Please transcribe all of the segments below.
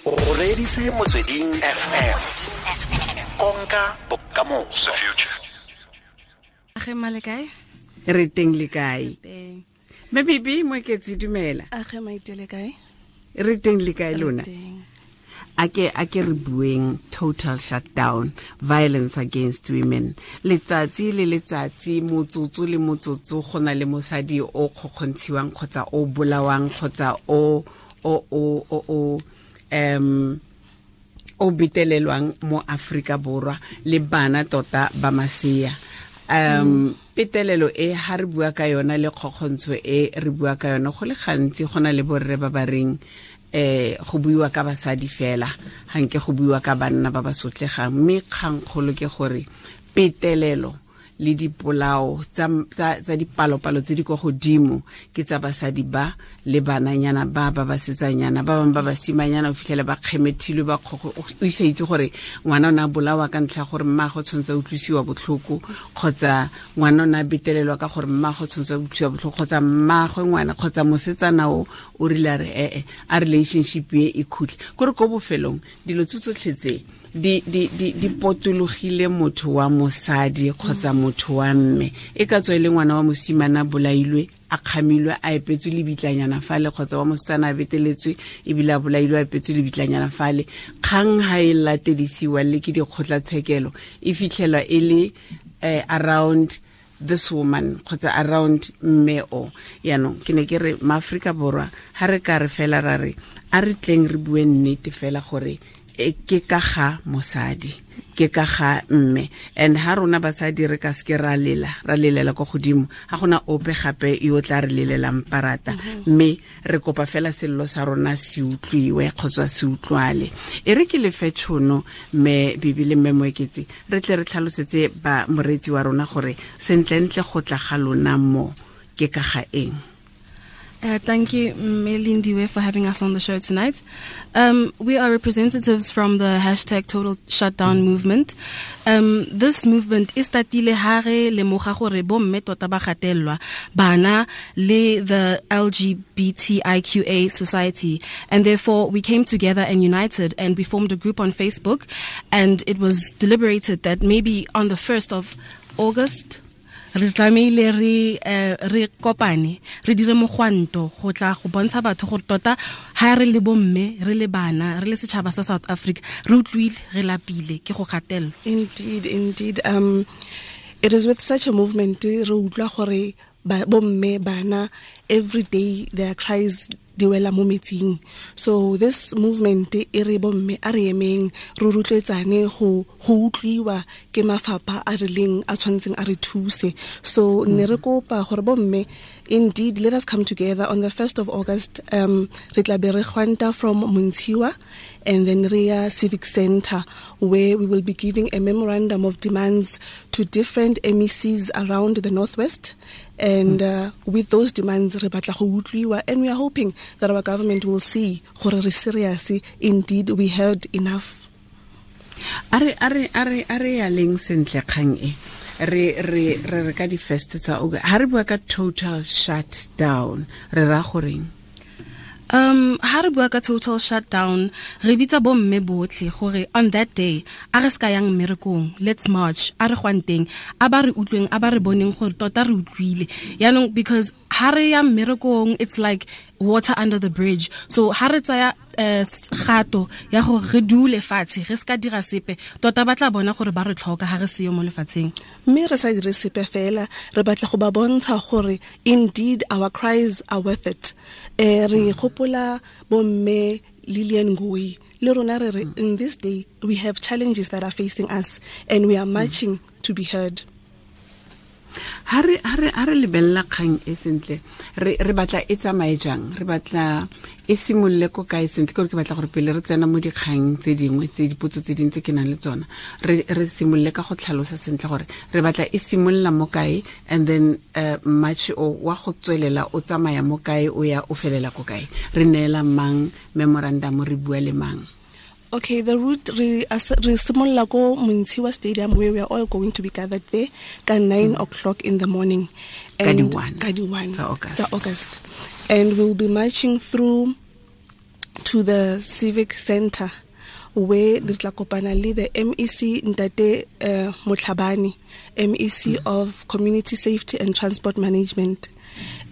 O reditse Motsweding FM. Konka bokamoso. Age male kae? Re teng le kae? Mme Bibi Moeketsi, dumela. Age maitele kae? Re teng le kae lona? A ke re bueng total shutdown, violence against women. Letsatsi le letsatsi, motsotso le motsotso, go na le mosadi o kgokgontshiwang kgotsa o bolawang kgotsa o o betelelwang mo Afrika Borwa le bana tota ba masea. Petelelo e ha re bua ka yona le kgokgontsho e re bua ka yona go le gantsi go na le borre ba ba reng go buiwa ka basadi fela, ga nke go buiwa ka banna ba ba sotlegang, mme kgangkgolo ke gore petelelo le dipolao tsa dipalopalo tse di kwa godimo ke tsa basadi ba le bananyana ba ba basetsanyana ba bangwe ba basimanyana, o fitlhele ba kgemethilwe ba kgogo, o isa itse gore ngwana o ne a bolawa ka ntlha gore mmaagwe tshwanetse a utlwisiwa botlhoko, kgotsa ngwana o ne a betelelwa ka gore mmaagwe tshwanetse a utlwisiwa botlhoko, kgotsa mmaagwe ngwana kgotsa mosetsana o o rile a re a relationship e e khutle. Kore ko bofelong dilo tse tsotlhe tse di potologile motho wa mosadi kgotsa motho wa mme, e ka tswa e le ngwana wa mosimane a bolailwe a kgamilwe a epetswe lebitlanyana fale, kgotsa wa mosetsana a beteletswe ebile a bolailwe a epetswe lebitlanyana fale. Kgang ha e latedisiwa le ke dikgotlatshekelo e fitlhelwa e le around this woman kgotsa around mme o. Yaanong ke ne ke re maAforika Borwa ha re ka re fela ra re a re tleng re bue nnete fela gore ke ka ga mosadi, ke ka ga mme, and ha rona basadi re ka seke ra lela, ra lelela kwa godimo, ga gona ope gape yo tla re lelelang parata, mme re kopa fela sello sa rona se utlwiwe kgotsa se utlwale. E re ke lefe tšhono mme Bibi le mme Moeketsi re tle re tlhalosetse ba moreetsi wa rona gore sentlentle go tla ga lona mo ke ka ga eng. Thank you, Melindiwe, for having us on the show tonight. We are representatives from the hashtag Total Shutdown movement. This movement is tatile hare lemoga gore bomme tota ba gatelelwa bana le the LGBTIQA society, and therefore we came together and united, and we formed a group on Facebook, and it was deliberated that maybe on the 1st of August re tlamehile re kopane re dire mogwanto go tla go bontsha batho gore tota ha re le bomme, re le bana, re le setšhaba sa South Africa, re utlwile, re lapile ke go gatelelwa. Indeed. It is with such a movement re utlwa gore bomme, bana, every day their cries di wela mo metsing. So this movement e re bomme a re emeng re rotloetsane go utlwiwa ke mafapha a rileng a tshwanetseng a re thuse. So ne re kopa gore bomme, indeed, let us come together on the 1st of August. Re tla be re gwanta from Montshiwa and then re ya Civic Center, where we will be giving a memorandum of demands to different MECs around the Northwest. And with those demands, re batla go utlwiwa, and we are hoping that our government will see gore re serious. Indeed, we heard enough. A re ya leng sentle kgang e re re re ka di first tsa ha re bua ka total shutdown re ra goreng? Ha re bua ka total shutdown re bitsa bomme botlhe gore on that day a re ska yang mmerekong, let's march, a re gwanteng, a ba re utlweng, a ba re boneng gore tota re utlwile. Yaanong because ha re ya mmerekong it's like water under the bridge, so ha re tsaya gato ya gore re dule fatshe re ska dira sepe, tota ba tla bona gore ba re tlhoka ha re seyo mo lefatsheng. Mme re sa dire sepe fela, re batla go ba bontsha gore indeed our cries are worth it. Re gopola bomme Lillian Ngoyi le rona re re in this day we have challenges that are facing us and we are marching to be heard. Ha re lebella kgang e sentle, re batla e tsamaye jang, re batla e simolole ko kae sentle? Ke gore ke batla gore pele re tsena mo dikgang tse dingwe tse dipotso tse dingwe tse ke nang le tsona, re simolole ka go tlhalosa sentle gore re batla e simolola mo kae, and then march o wa go tswelela o tsamaya mo kae, o ya o felela ko kae, re neela mang memorandum, re bua le mang? Okay, the route re simolola ko Montshiwa Stadium, where we are all going to be gathered there at 9 o'clock in the morning. And Ka di 1 August. And we'll be marching through to to the Civic Center, where re tla kopana le the MEC Ntate Motlhabane, MEC of Community Safety and Transport Management.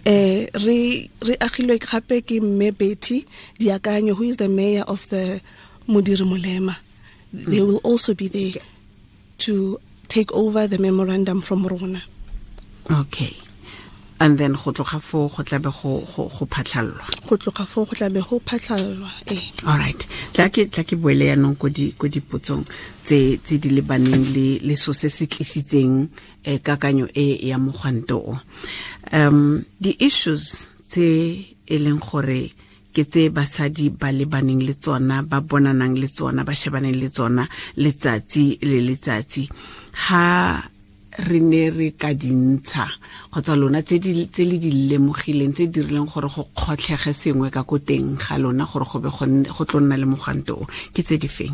Re agilwe gape ke Mme Betty Diakanyo, who is the mayor of the Modiri Molema. They will also be there to take over the memorandum from rona. Okay. And then go tloga foo go tlabe go phatlhallwa. Go tloga foo go tlabe go phatlhallwa, eh. All right. Tla ke boele yanong ko dipotsong tse di lebaneng le so se se tlisitseng kakanyo e ya mogwanto o. The issues tse e leng gore ke tse basadi ba lebaneng le tsona, ba bonanang le tsona, ba shebaneng le tsona letsatsi le letsatsi, ha re ne re ka dintsha kgotsa lona tse le di lemogileng, tse dirileng gore go kgotlhege sengwe ka ko teng ga lona gore go be go tlo nna le mogwanto o, ke tse di feng?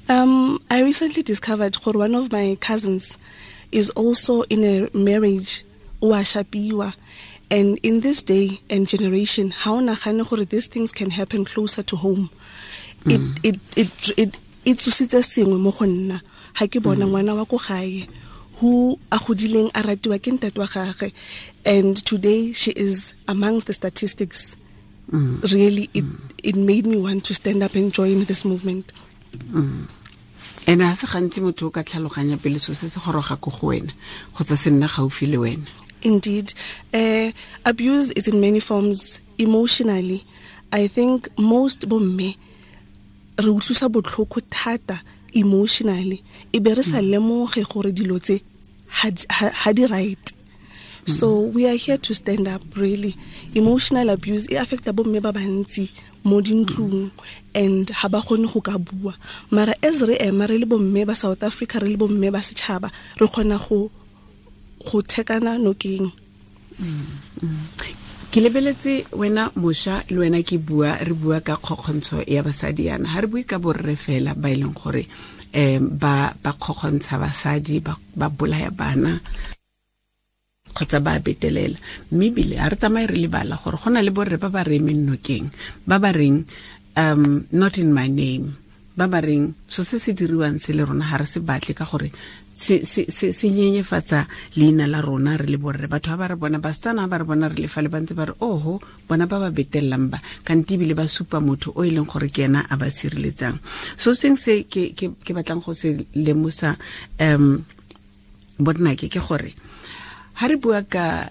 I recently discovered gore one of my cousins is also in a marriage, o a shapiwa. And in this day and generation, ha o nagane gore these things can happen closer to home. It tsositse sengwe mo go nna. Ha ke bona ngwana wa ko gae who a godileng a ratiwa ke ntate wa gagwe, and today she is amongst the statistics. Really, it made me want to stand up and join this movement. Ene ha se gantsi motho o ka tlhaloganya pele so se se goroga ko go wena kgotsa se nna gaufi le wena. Indeed. Abuse is in many forms. Emotionally, I think most bomme re utlwisa botlhoko thata emotionally, e be re sa lemoge gore dilo tse ha di right. So we are here to stand up, really. Emotional abuse e affecta bomme ba bantsi mo dintlong, and ha ba kgone go ka bua. Mara as re ema re le bomme ba South Africa, re le bomme ba setšhaba, re kgona go thekana nokeng. Ke lebeletse wena mosha le wena ke bua, re bua ka kgokgontsho ya basadi yana, ha re bue ka borre fela ba e leng gore ba kgokgontsha basadi, ba bolaya bana kgotsa ba betelela, mme ebile ha re tsamaye re lebala gore go na le borre ba ba re emeng nokeng, ba ba reng not in my name, ba ba reng so se se diriwang se le rona ha re se batle ka gore se nyenyefatsa leina la rona re le borre. Batho ba re bona, basetsana ba re bona re le fa le ba ntse ba re oho bona ba ba betellang ba, kante ebile ba supa motho o e leng gore ke ena a ba sireletsang. So seng se ke batlang go se lemosa bonnake ke gore ha re bua ka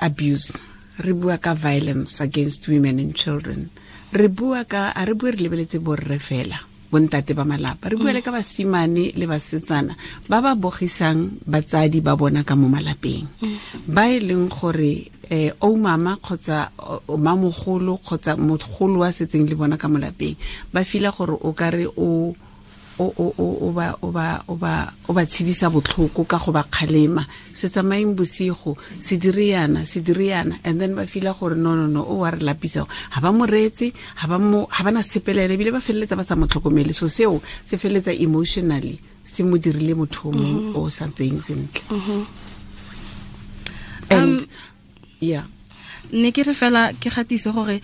abuse, re bua ka violence against women and children, re bua ka, a re bue re lebeletse borre fela, bontate ba malapa, re bua le ka basimane le basetsana ba ba bogisang batsadi ba bona ka mo malapeng, ba e leng gore o mama kgotsa o mamogolo kgotsa mogolo wa setseng le bona ka mo lapeng, ba fila gore o ka re o ba tshedisa botlhoko ka go ba kgalema, se tsamaeng bosigo, se dire yana, and then ba fila gore no o wa re lapisa, ha ba mo reetse, ha ba na sepelele, ebile ba feleletsa ba sa mo tlhokomele. So seo se feleletsa emotionally se mo dirile motho o mongwe o sa tseyeng sentle. And yeah, ne ke re fela ke gatise gore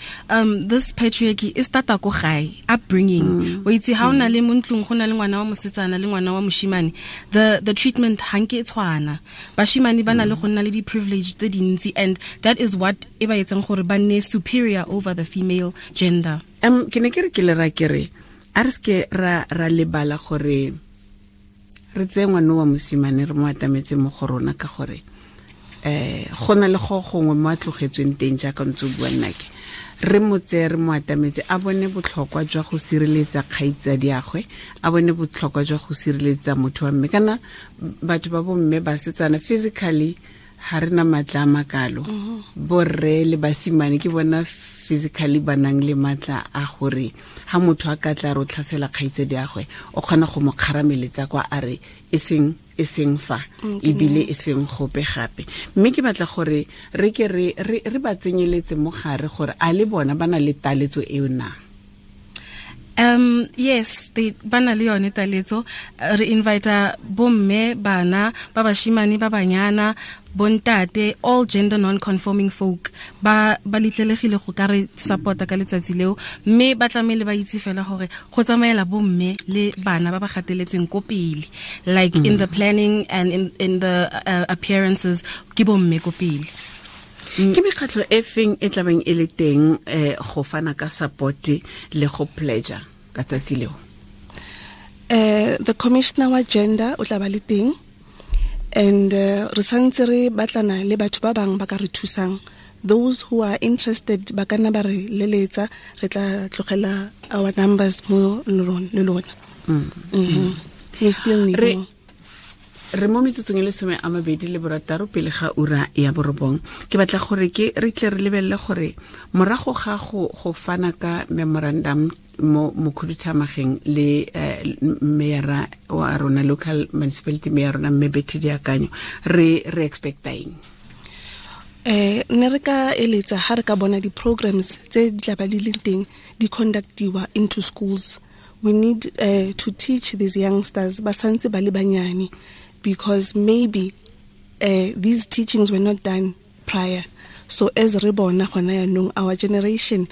this patriarchy e starta ko gae, upbringing. O itse ha o na le mo ntlong go na le ngwana wa mosetsana le ngwana wa moshimane, the treatment ha nke e tshwana. Bashimane ba na le go nna le di privilege tse dintsi, and that is what e ba etsang gore ba nne superior over the female gender. Ke ne ke re ke le ra ke re a re seke ra lebala gore re tseye ngwana wa mosimane re mo atametse mo go rona, ka gore go na le go gongwe mo a tlogetsweng teng jaaka ntse o bua nnake, re mo tseye re mo atametse, a bone botlhokwa jwa go sireletsa kgaitsadiagwe, a bone botlhokwa jwa go sireletsa motho wa mme. Kana batho ba bomme basetsana physically ha re na matla a makalo, borre le basimane ke bona physically ba nang le matla a gore ha motho a ka tla re o tlhasela kgaitsadiagwe, o kgona go mo kgarameletsa kwa a re e seng fa, ebile e seng gope gape. Mme ke batla gore re ke re ba tsenyeletse mo gare gore a le bona ba na le taletso eo na. Yes, they bana le yone taletso. Re invite bomme, bana, ba bashimane, ba banyana, bontate, all gender non-conforming folk ba litlelegile go ka re supporta ka letsatsi leo, mme ba tlamele ba itse fela gore go tsamaela bomme le bana ba ba gateletsweng ko pele, like in the planning and in the appearances ke bomme ko pele. Ke mekgatlho e feng e tlabeng e le teng go fana ka support le go pledge ka tsatsi leo? The commissioner wa gender o tla ba le teng, and re santse re batlana le batho ba bang ba ka re thusang. Those who are interested ba ka nna ba re leletsa, re tla tlogela our numbers mo le lona. We still need more. Re mo metsotsong e le 26 pele ga ura ya 9. Ke batla gore ke re tle re lebelele gore morago ga go fana ka memorandum mo mokhuduthamagang le mayor wa rona, local municipality mayor rona mme Betty Diakanyo, re expecta eng? Ne re ka eletsa ha re ka bona di-programs tse di tla ba di leng teng di conductiwa into schools. We need to teach these youngsters ba santse ba le banyane, because maybe these teachings were not done prior. So as re bona gona yanong, our generation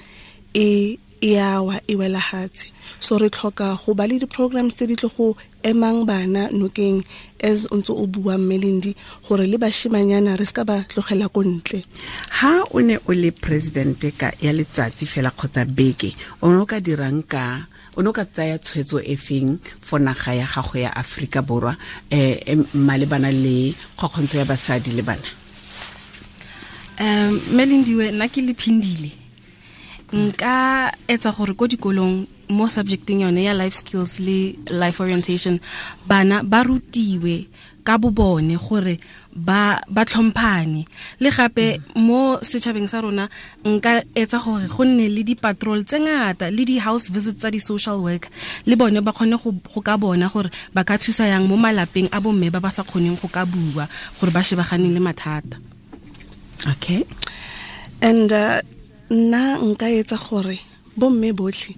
e yawa e wela hatse. So re tlhoka go ba le di-programs tse di tlo go emang bana nokeng, as o ntse o bua Melindi, gore le bashimanyana re ska ba tlogela ko ntle. Ha o ne o le president ka ya letsatsi fela kgotsa beke, o ne o ka dirang ka o ne o ka tsaya tshwetso e feng for naga ya gago ya Afrika Borwa malebana le kgokgontsho ya basadi le bana? Melindiwe, nna ke le Phindile, nka etsa gore ko dikolong mo subjecting yone ya life skills le life orientation, bana ba rutiwe ka bo bone gore ba tlhomphane. Le gape mo setšhabeng sa rona nka etsa gore go nne le di-patrol tse ngata le di-house visits tsa di-social work, le bone ba kgone go ka bona gore ba ka thusa yang mo malapeng a bomme ba ba sa kgoneng go ka bua, gore ba shebaganeng le mathata. Okay. And nna nka etsa gore bomme botlhe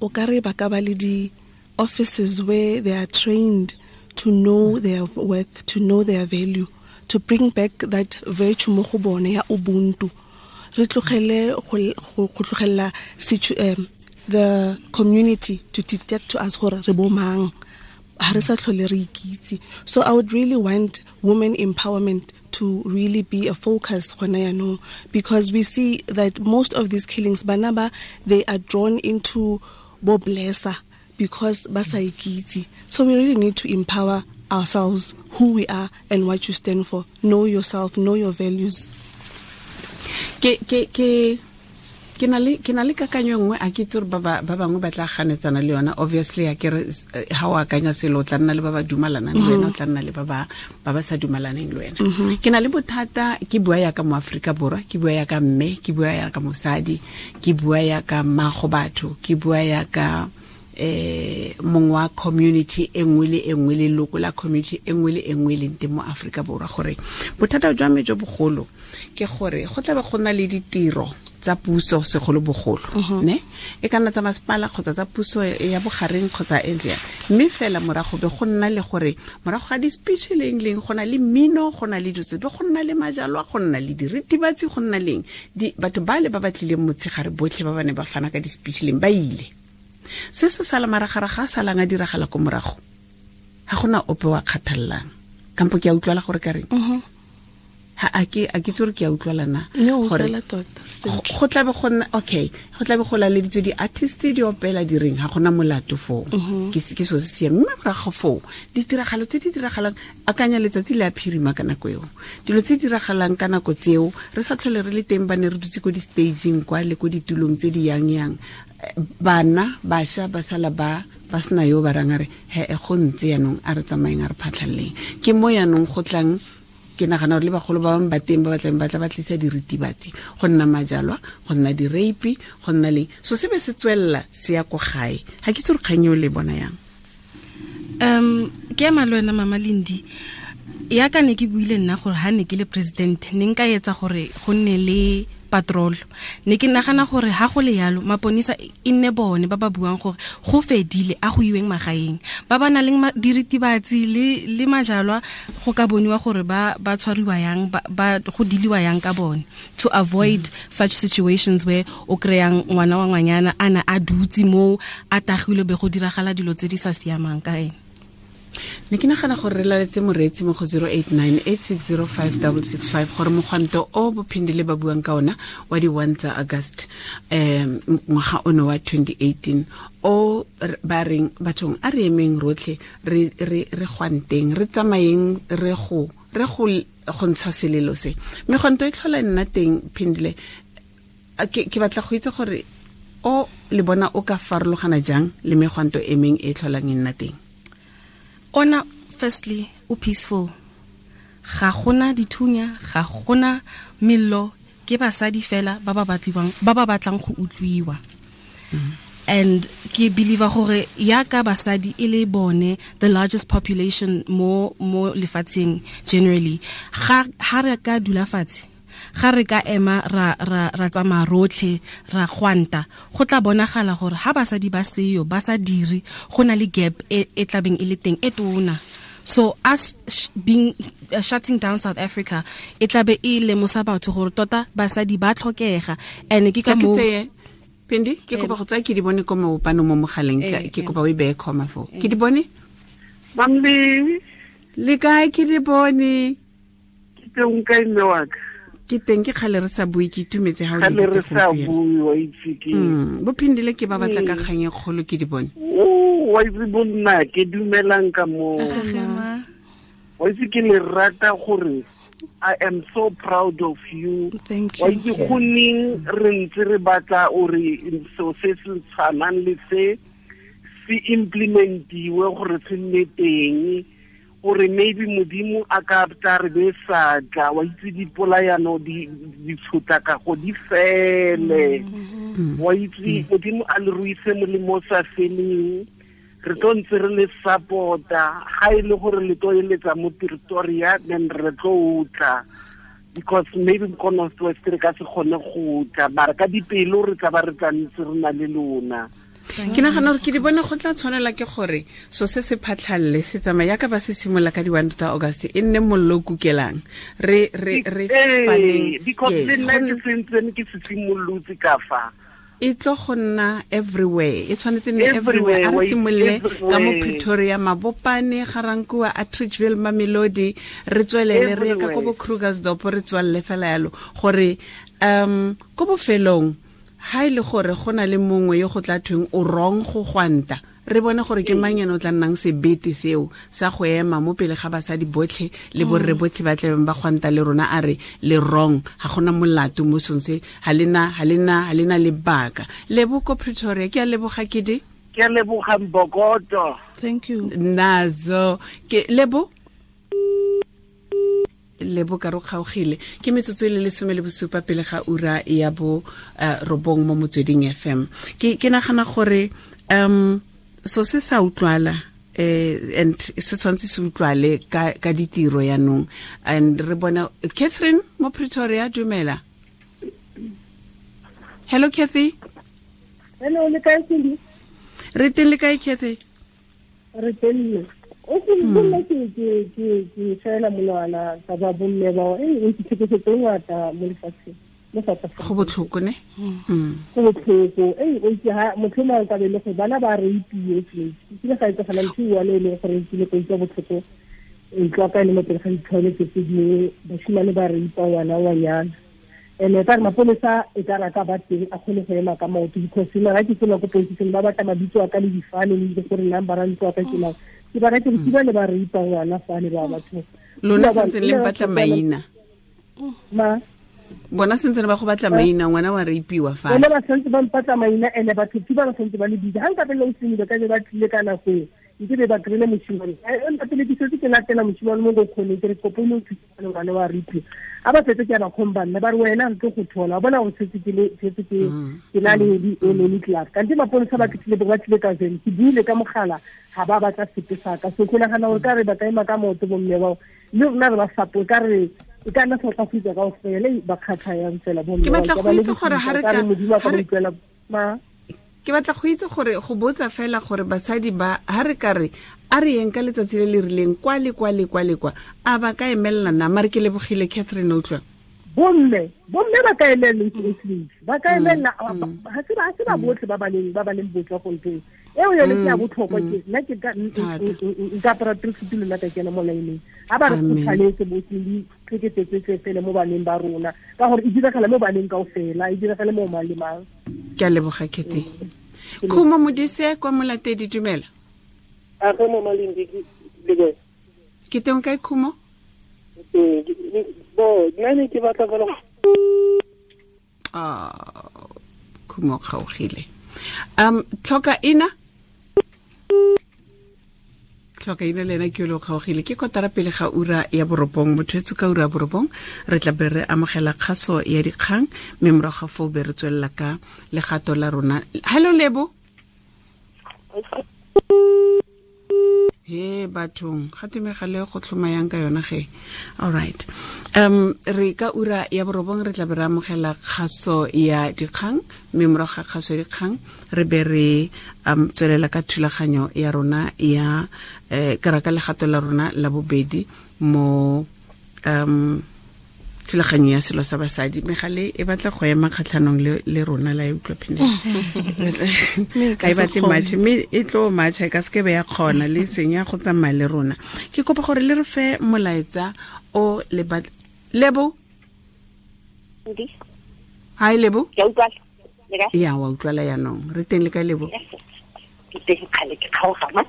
o ka re ba ka ba le di-offices where they are trained to know their worth, to know their value, to bring back that virtue mo go bone ya ubuntu. Re tlogele go tlogela the community to detect to us gore re bo mang, ha re sa tlhole re ikitse. So I would really want women empowerment to really be a focus gona yanong, because we see that most of these killings, bana ba, they are drawn into bo blesser because ba sa ikitse. So we really need to empower ourselves, who we are and what you stand for. Know yourself, know your values. Ke na le kakanyo nngwe, a ke itse gore ba bangwe ba tla ganetsana le yona. Obviously a ke re ha o akanya selo o tla nna le ba ba dumalanang le wena, o tla nna le ba ba sa dumalaneng le wena. Ke na le bothata, ke bua ya ka mo Afrika Borwa, ke bua ya ka mme, ke bua ya ka mosadi, ke bua ya ka mmago batho, ke bua ya ka mongwe wa community e nngwe le e nngwe, leloko la community e nngwe le e nngwe e leng teng mo Afrika Borwa, gore bothata jwa me jo bogolo ke gore go tla be go nna le ditiro tsa puso segolobogolo, ne e ka nna tsa masepala kgotsa tsa puso ya bogareng kgotsa e ntse, mme fela morago be go nna le gore morago ga di-speech leng leng go na le mmino, go na le dilo tse, be go nna le majalwa, go nna le diritibatsi, go nna leng batho ba le ba ba tlileng motshegare botlhe ba ba ne ba fana ka di-speech leng ba ile. Se se sala maragaraga a salang a diragala ko morago, ga gona ope wa kgathallang. Kampo ke a utlwala gore ka reng? Ha a ke itse gore ke a utlwala na? Gore go tla be go nna okay, go tla be go laleditswe di-artist di opela di reng, ga gona molato foo. Ke so se siame. Mme morago foo ditiragalo tse di diragalang, akanya letsatsi le a phirima ka nako eo, dilo tse di diragalang ka nako tseo re sa tlhole re le teng, ba ne re dutse ko di-staging kwa le ko ditulong tse di yang-yang, bana bašwa ba sala ba sena yo ba rang a re he e go ntse yanong, a re tsamayeng a re phatlhaleleng. Ke mo yanong go tlang, ke nagana gore le bagolo ba bangwe ba teng ba batlang ba tla ba tlisa diritibatsi, go nna majalwa, go nna di-rape, go nna leng. So se be se tswelela se ya ko gae. Ga ke itse gore kgang eo le bona yang. Ke ema le wena Mama Lindi, ya ka ne ke buile nna gore ha ne ke le president ne nka etsa gore go nne le patrol. Ne ke nagana gore ha go le yalo maponisa e nne bone ba ba buang gore go fedile a go iweng magaeng. Ba ba nang le diritibatsi le majalwa go ka boniwa gore ba tshwariwa yang ba go diliwa yang ka bone, to avoid such situations where o kreyang ngwana wa ngwanyana ana a dutse mo a tagilwe be go diragala dilo tse di sa siamang ka ene. Ne ke nagana gore re laletse moreetsi mo go 0898605665 gore mogwanto o bophindile ba buang ka ona wa di 1 tsa August ngwaga ono wa 2018 o ba reng bathong a re emeng rotlhe re gwanteng re tsamayeng re go ntsha selelo se. Megwanto e tlhola nna teng Phindile, ke batla go itse gore o le bona o ka farologana jang le megwanto e meng e tlholang e nna teng? Ona firstly o peaceful, ga gona dithunya, ga gona mello, ke basadi fela ba ba batlang go utlwiwa. And ke believe gore ya ka basadi e le bone the largest population mo lefatsheng generally, ga re ka dula fatshe, ga re ka ema ra tsamaya rotlhe ra gwanta, go tla bonagala gore ha basadi ba seyo ba sa dire, go na le gap e tlabeng e le teng e tona. So us being shutting down South Africa e tlabe e lemosa batho gore tota basadi ba tlhokega. And ke ka mo Pindi, ke kopa go tsaya ke di bone ko maopano mo mogaleng, ke kopa o e beye comma fo. Ke di bone? Mamle, le kae ke di bone? Ke teng kae mme wa ka? Ke teng, ke kgale re sa bue, ke itumetse ha o le re sa bue, wa itse ke. Bophindile ke ba batla ka kgang e kgolo ke di bone. O wa itse bonna ke dumelang ka mo. Wa itse ke le rata gore I am so proud of you. Thank you. Wa itse go neng re ntse re batla ore so se se tshwanang le se se implementiwe gore se nne teng, gore maybe modimo a ka tla re be sa tla, wa itse dipolayano di tshotlakago di fele. Wa itse modimo a le ruise molemo sa feleng, re tlo ntse re le support-a ga e le gore le tlo eletsa mo Pretoria, then re tlo tla, because maybe ko North West re ka se kgone go tla, mara ka dipelo re tla ba re tla ntse re na le lona. Ke nagana gore ke di bone go tla tshwanela ke gore so se se phatlhalle se tsamaya yaka ba se simola ka di 1 tsa August e nne mollo kukelang re faneng, because le nna ke sentsene ke se simolotse ka fa e tlo go nna everywhere, e tshwanetse nne everywhere. A re simolole ka mo Pretoria, Mabopane, Garankuwa, Atteridgeville, Mamelodi, re tswelele re ye ka ko bo Krugersdorp, re tswalele fela yalo gore ko bofelong ha ile gore go na le mongwe yo go tla thweng o wrong go gwanta, re bone gore ke mang ene o tla nnang sebete seo sa go ema mo pele ga basadi botlhe le borre botlhe ba tlebeng ba gwanta le rona, a re le wrong, ga gona molato mo song se, ha lena lebaka. Lebo ko Pretoria, ke a leboga ke di. Ke a leboga Mbokoto. Thank you. Nazo ke lebo ka ro kgaogile ke metsotso e le 17 pele ga ura ya bo 9 mo Motsweding FM. Ke nagana gore so se sa utlwala and se tshwanetse se utlwale ka ditiro yanong. And re bona Catherine mo Pretoria, dumela. Hello Cathy. Hello, le kae Cindy? Re teng, le kae Cathy? Re teng. O se nna ke fela monwana ka ba bomme ba e ke tlhekefetso ngata mo lefatsheng mo South Africa. Go botlhoko ne? Go botlhoko. O itse ha motho mongwe ka be le gore bana ba rapiwe ke ile ga etsagala ntho e one e leng gore ke ile go utlwa botlhoko ntlo ka e le mo pele ga di-toilet tse dingwe, bashimane ba raipa ngwana wa nyana. And ka re mapolesa e ka raka ba teng a kgone go ema ka maoto, because nna ga ke tsena ko police ba batla mabitso a ka le difane le gore number a ntlo a ka ke mang. Ke ba rate ke ba le ba ripa ngwana fa le ba batho. Lona sentse le mpatla maina. Ma bona sentse ba go batla maina, ngwana wa rapiwa fa. Bona ba sentse ba mpatla maina ene batho ke ba sentse ba le bitsa. Ha nka pele o simile ka ba tlile ka nako e. Nke be ba krile moshimane. Nka pele ke setse ke latela moshimane mo go khone ke re kopo mo thusa ngwana wa rapiwa. A ba setse ke ba khomba nne ba re wena re go thola. Bona o setse ke le setse ke na le di le club. Kante mapolesa ba tlile ba tlile ka zeng. Ke buile ka mogala ga ba batla sepe sa ka. So ke nagana gore ka re ba ka ema ka maoto bomme bao le rona re ba support, ka re E ka nna South Africa kaofela ba kgatlha yang fela bo Ke batla go itse gore ha re ka ke batla go itse gore go botsa fela gore basadi ba ha re ka re a re yeng ka letsatsi le le rileng kwa le kwa le kwa le kwa a ba ka emelela na mare ke lebogile Catherine utlwa bomme ba ka emelela ba ka emelela ha se ba botlhe ba ba leng botswa go nteng eo yone ke ya botlhokwa ke nna ke ka nka apara tracksuit le nna ka kena mo laeneng ha ba re kgothaletse botlhe tlhekefetse fele mo baneng ba rona ka gore e diragala mo baneng kaofela e diragale mo mang le mang. Ke a leboga Kete. Khumo Modise kwa Molatedi, dumela. A go mo Malindi le ke teng kae Khumo? Bo nna ne ke batla fela Khumo kgaogile. Tlhoka ina le ena ke yo kgaogile ke kotara pele ga ura ya 9 motho etso ka ura ya 9 re tla be re amogela kgaso ya dikgang mme morago ga foo be re tswelela ka legato la rona. Hello Lebo. He bathong ga tumegale go tlhoma yang ka yona ge. All right. Re ka ura ya 9 re tla be re amogela kgaso ya dikgang mme morago ga kgaso ya dikgang re be re tswelela ka thulaganyo ya rona ya ka legato la rona la bobedi mo thulaganyo ya selo sa basadi. Megale e batla go ema kgatlhanong le rona la e utlwa phine ga e batle match mme e tlo match e ka se ke be ya kgona le senya go tsamaya le rona. Ke kopa gore le re fe molaetsa o le Lebo. Hi Lebo. Ya wa utlwala yanong re teng le ka Lebo? Ke teng kgale ke kgaoga ma.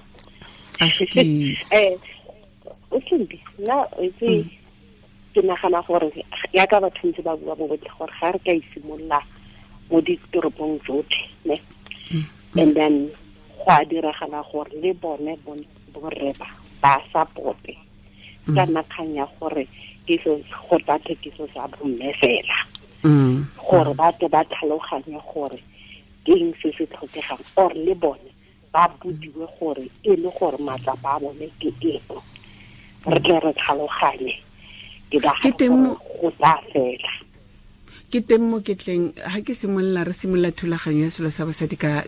O sentse nna itse ke nagana gore ya ka batho ntse ba bua bo botlhe gore ga re ka isimolola mo ditoropong tsotlhe ne and then go a diragala gore le bone borre ba supporte ka nna kgang ya gore ke so go tla thekiso sa bomme fela gore ba tle ba tlhaloganye gore ke eng se se tlhokegang or le bone ba bodiwe gore e le gore matsapa a bone ke eng re tle re tlhaloganye ke teng mo go tla fela. Ke teng mo ke tleng ha ke simolola re simolola thulaganyo ya selo sa basadi ka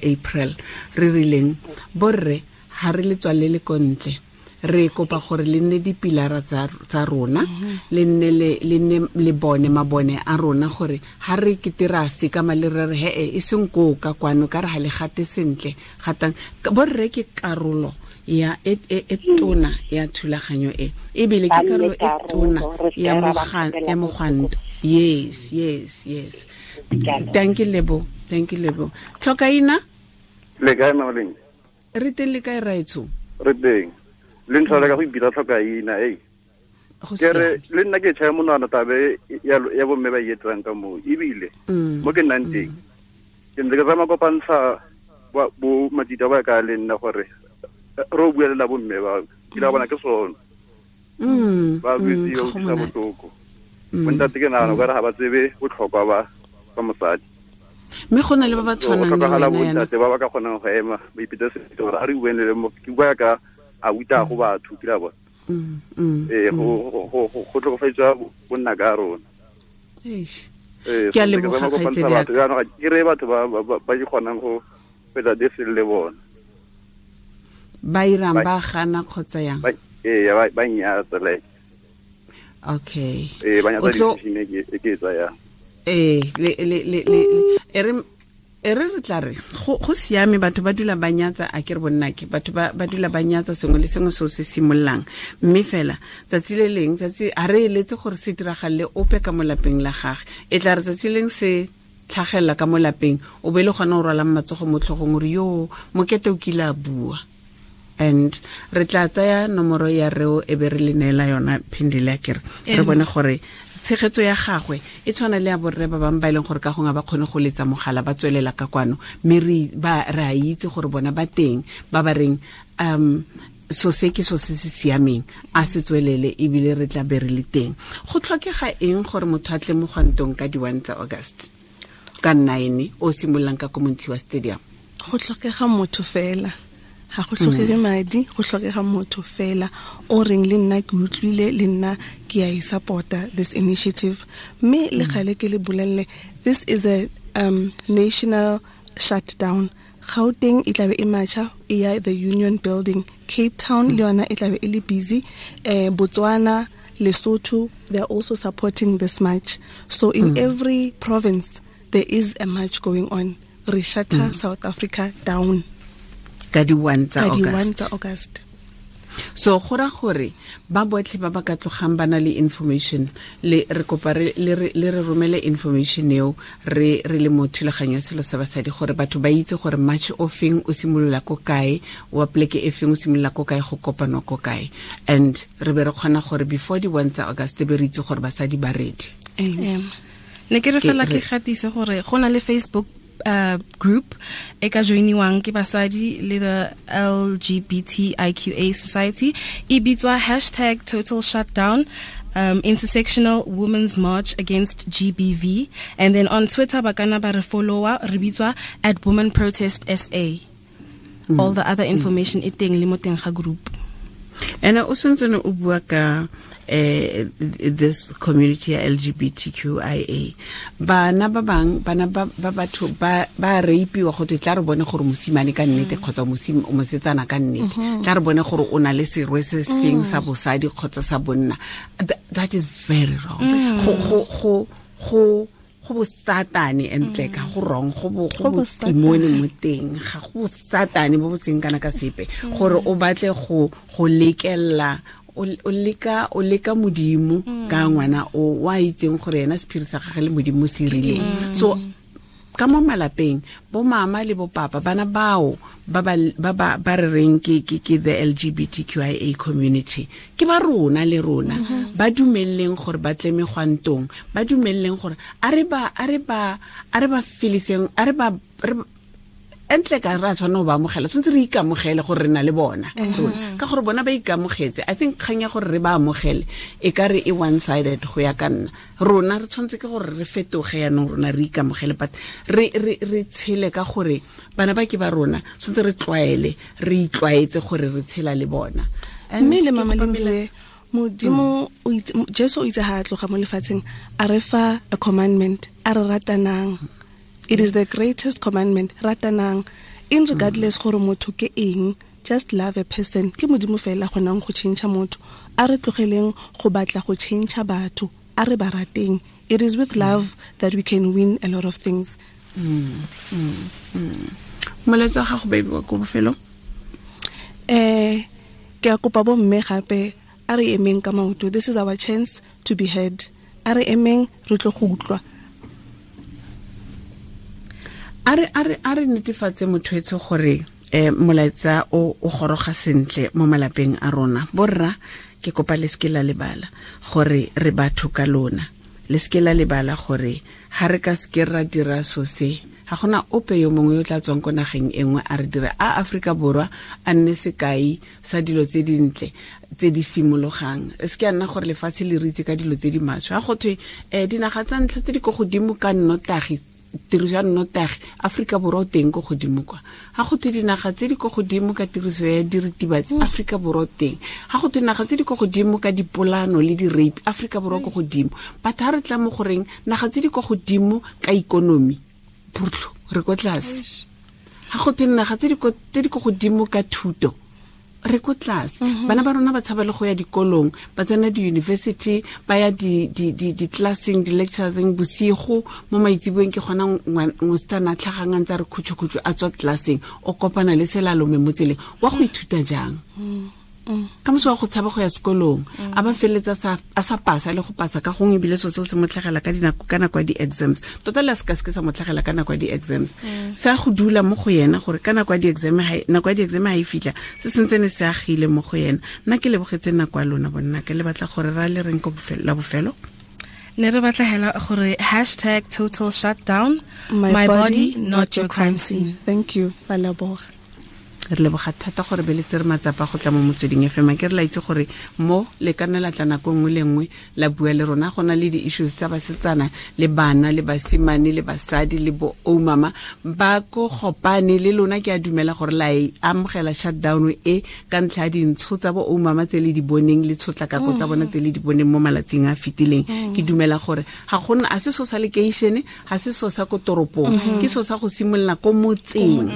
April re rileng borre ha re le tswalele ko ntle re kopa gore le nne dipilara tsa rona le nne le bone mabone a rona gore ha re ketera se ka male re re he e seng ko ka kwano ka re ha le gate sentle gatang borre ke karolo ya e tona ya thulaganyo e ebile ke karolo e tona ya mogwanto. Yes. Thank you Lebo. Tlhokaina le kae Maoleng? Re teng le kae raetsho? Re teng le ntlhola ka go ipitsa Tlhokaina. Ke re le nna ke tšhaya monwana tabe ya bomme ba etsang ka moo ebile mo ke nnang teng ke ntse ke tsamaya kopantsha bo matita ba ka le nna gore re o buelela bomme ba ke la bona ke sone ba buisiwa utlwisa botlhoko. Bontate ke nagana ka re ga ba tsebe botlhokwa ba mosadi mme go na le ba ba tshwanang le wena bontate ba ba ka kgonang go ema ba ipitsa sentle gore a re bueng le mo ke bua ka a uta go batho ke la bona go tlhokofatswa bonna ka rona. Ke a leboga kgaitsedi ya ka. Ke re batho ba di kgonang go fetsa dese le bona ba irang ba gana kgotsa yang ba nyatsa like okay ba nyatsa decision e ke tsaya le e re re tla re go siame batho ba dula ba nyatsa a ke re bonna ke batho ba dula ba nyatsa sengwe le sengwe se se simollang mme fela tsatsi le leng tsatsi a re eletse gore se diragalle ope ka mo lapeng la gagwe e tla re tsatsi leng se tlhagella ka mo lapeng o be le gona o rwalang matsogo mo tlhogong gore yo mokete o kile a bua. And re tla tsaya nomoro ya reo e be re le neela yona Phindile akere re bone gore tshegetso ya gagwe e tshwana le ya borre ba bangwe ba e leng gore ka gongwe ba kgone go letsa mogala ba tswelela ka kwano mme re a itse gore bona ba teng ba ba reng so se ke so se se siameng a se tswelele ebile re tla be re le teng. Go tlhokega eng gore motho a tle mogwantong ka di-1 tsa August ka 9 o simololang ka ko Montshiwa Stadium? Go tlhokega motho fela. Ga go tlhokege madi, go tlhokega motho fela o reng le nna ke utlwile, le nna ke a e support-a this initiative. Mme le gale ke le bolelle, this is a national shutdown. Gauteng e tlabe e matcha e ya the Union Building, Cape Town le yona e tlabe e le busy, Botswana, Lesotho, they are also supporting this march. So in every province there is a march going on. Re shutter South Africa down ka di 1 tsa August. So go ra gore ba botlhe ba ba ka tlogang ba na le information, le re kopa le re romele information eo re le mo thulaganyo ya selo sa basadi, gore batho ba itse gore march o feng o simolola ko kae, wa pleke e feng o simolola ko kae, go kopanwa ko kae, and re be re kgona gore before di 1 tsa August be re itse gore basadi ba ready. Amen. Ne ke re fela ke gatise gore go na le Facebook group e ka joiniwang ke basadi le the LGBTIQA Society, e bitswa hashtag total shutdown intersectional women's march against GBV, and then on Twitter ba kana ba re follower, re bitswa at women protest SA. All the other information e teng le mo teng ga group. Ene o sentse o bua ka this community LGBTQIA, bana ba bang bana ba batho ba rapiwa go tla re bone gore mosimane ka nnete kgotsa mosetsana ka nnete, tla re bone gore o na le serwe se sefeng sa bosadi kgotsa sa bonna. That is very wrong. Go bosatane entle ka go wrong, go botimone mo teng, ga go bosatane bo bo seng kana ka sepe, gore o batle go lekella o leka modimo ka ngwana o wa itseng gore yena sephiri sa gagwe le modimo se rileng. So ka mo malapeng bo mama le bo papa, bana bao ba ba re reng ke the LGBTQIA community, ke ba rona le rona, ba dumelleng gore ba tle megwantong, ba dumelleng gore a re ba feliseng, a re ba entle ka ra tshwana ba amogela, tshwanetse re ikamogele gore re na le bona rona, ka gore bona ba ikamogetse. I think kgang ya gore re ba amogele e ka re e one sided go ya ka nna. Rona re tshwanetse ke gore re fetoge yanong, rona re ikamogele, but re tshele ka gore bana ba ke ba rona, tshwanetse re tlwaele, re itlwaetse gore re tshela le bona. Mme le mama Lindiwe, modimo Jesu o itse ha a tloga mo lefatsheng a re fa a commandment, a re ratanang. It is the greatest commandment, ratanang, in regardless gore motho ke eng, just love a person. Ke modimo fela gonang go change motho, a re tlogeleng go batla go change batho, a re ba rateng. It is with love that we can win a lot of things. Molaetsa wa gago baby wa ko bofelong? Ke a kopa bo mme gape, a re emeng ka maoto. This is our chance to be heard. A re emeng, re tlo go utlwa. A re netefatse motho etse gore molaetsa o goroga sentle mo malapeng a rona. Borra, ke kopa le seke la lebala gore re batho ka lona, le seke la lebala gore ha re ka seke ra dira so se, ga gona ope yo mongwe yo tla tswang ko nageng e nngwe a re dira a Afrika Borwa a nne sekai sa dilo tse dintle tse di simologang. Se ke a nna gore lefatshe le re itse ka dilo tse di maswe. Ga go thwe dinaga tsa ntlha tse di ko godimo ka nnotagi, tiriso ya nnotagi, Afrika Borwa o teng ko godimo kwa. Ga go thwe dinaga tse di ko godimo ka tiriso ya diritibatsi, Afrika Borwa o teng. Ga go thwe dinaga tse di ko godimo ka dipolano le di-rape, Afrika Borwa ko godimo. But ha re tla mo goreng naga tse di ko godimo ka ikonomi, phutlo re ko tlase. Ga go thwe naga tse di ko godimo ka thuto, re ko tlase. Bana ba rona ba tshaba le go ya dikolong, ba tsena di-university, ba ya di-classeng, di-lectureseng bosigo mo maitseboeng, ke gona mosetsana a tlhagang a ntse a re khutšho-khutšho a tswa classeng, o kopana le selalome mo tseleng, wa go ithuta jang? Ka moso wa go tshaba go ya sekolong, a ba feleletsa a sa pasa le go pasa ka gongwe, ebile seo se mo tlhagela ka dinako, ka nako ya di-exams. Tota le a se ka seke sa mo tlhagela ka nako ya di-exams, se a go dula mo go yena gore ka nako ya di-exam ha e fitlha, se sentse se agile mo go yena. Nna ke lebogetse nako ya lona bonna, ke le batla gore ra le reng ko la bofelo. Ne re batla hela gore hashtag total shutdown, my body not your crime scene. Thank you, ba leboga. Re leboga thata gore be le tsere matsapa go tla mo Motsweding FM. Ke re la itse gore mo le ka nna la tla nako nngwe le nngwe la bua le rona. Go na le di-issues tsa basetsana le bana le basimane le basadi le bo oumama ba ko gopane le lona. Ke a dumela gore la e amogela shutdown e ka ntlha ya dintsho tsa bo oumama tse le di boneng le tshotlakako tsa bona tse le di boneng mo malatsing a fetileng. Ke dumela gore ga gona a se so sa lekeišene, ga se so sa ko toropong, ke so sa go simolola ko motseng.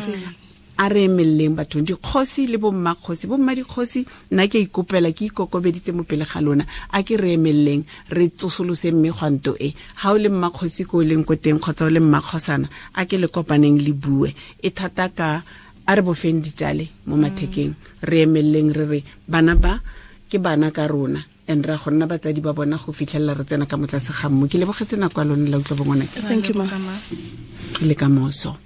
A re emeleleng bathong, dikgosi le bommakgosi, bomma dikgosi, nna ke ikopela, ke ikokobeditse mo pele ga lona, a ke re emeleleng re tsosolose megwanto e. Ha o le mmakgosi ko o leng ko teng kgotsa o le mmakgosana, a ke le kopaneng le bue e thata ka a re bofeng ditjale mo mathekeng, re emeleleng re re bana ba ke bana ka rona and ra go nna batsadi ba bona go fitlhelela re tsena ka motlase ga mmu. Ke lebogetse nako ya lone la utlwa bongwanake. Thank you, ma. Le ka moso.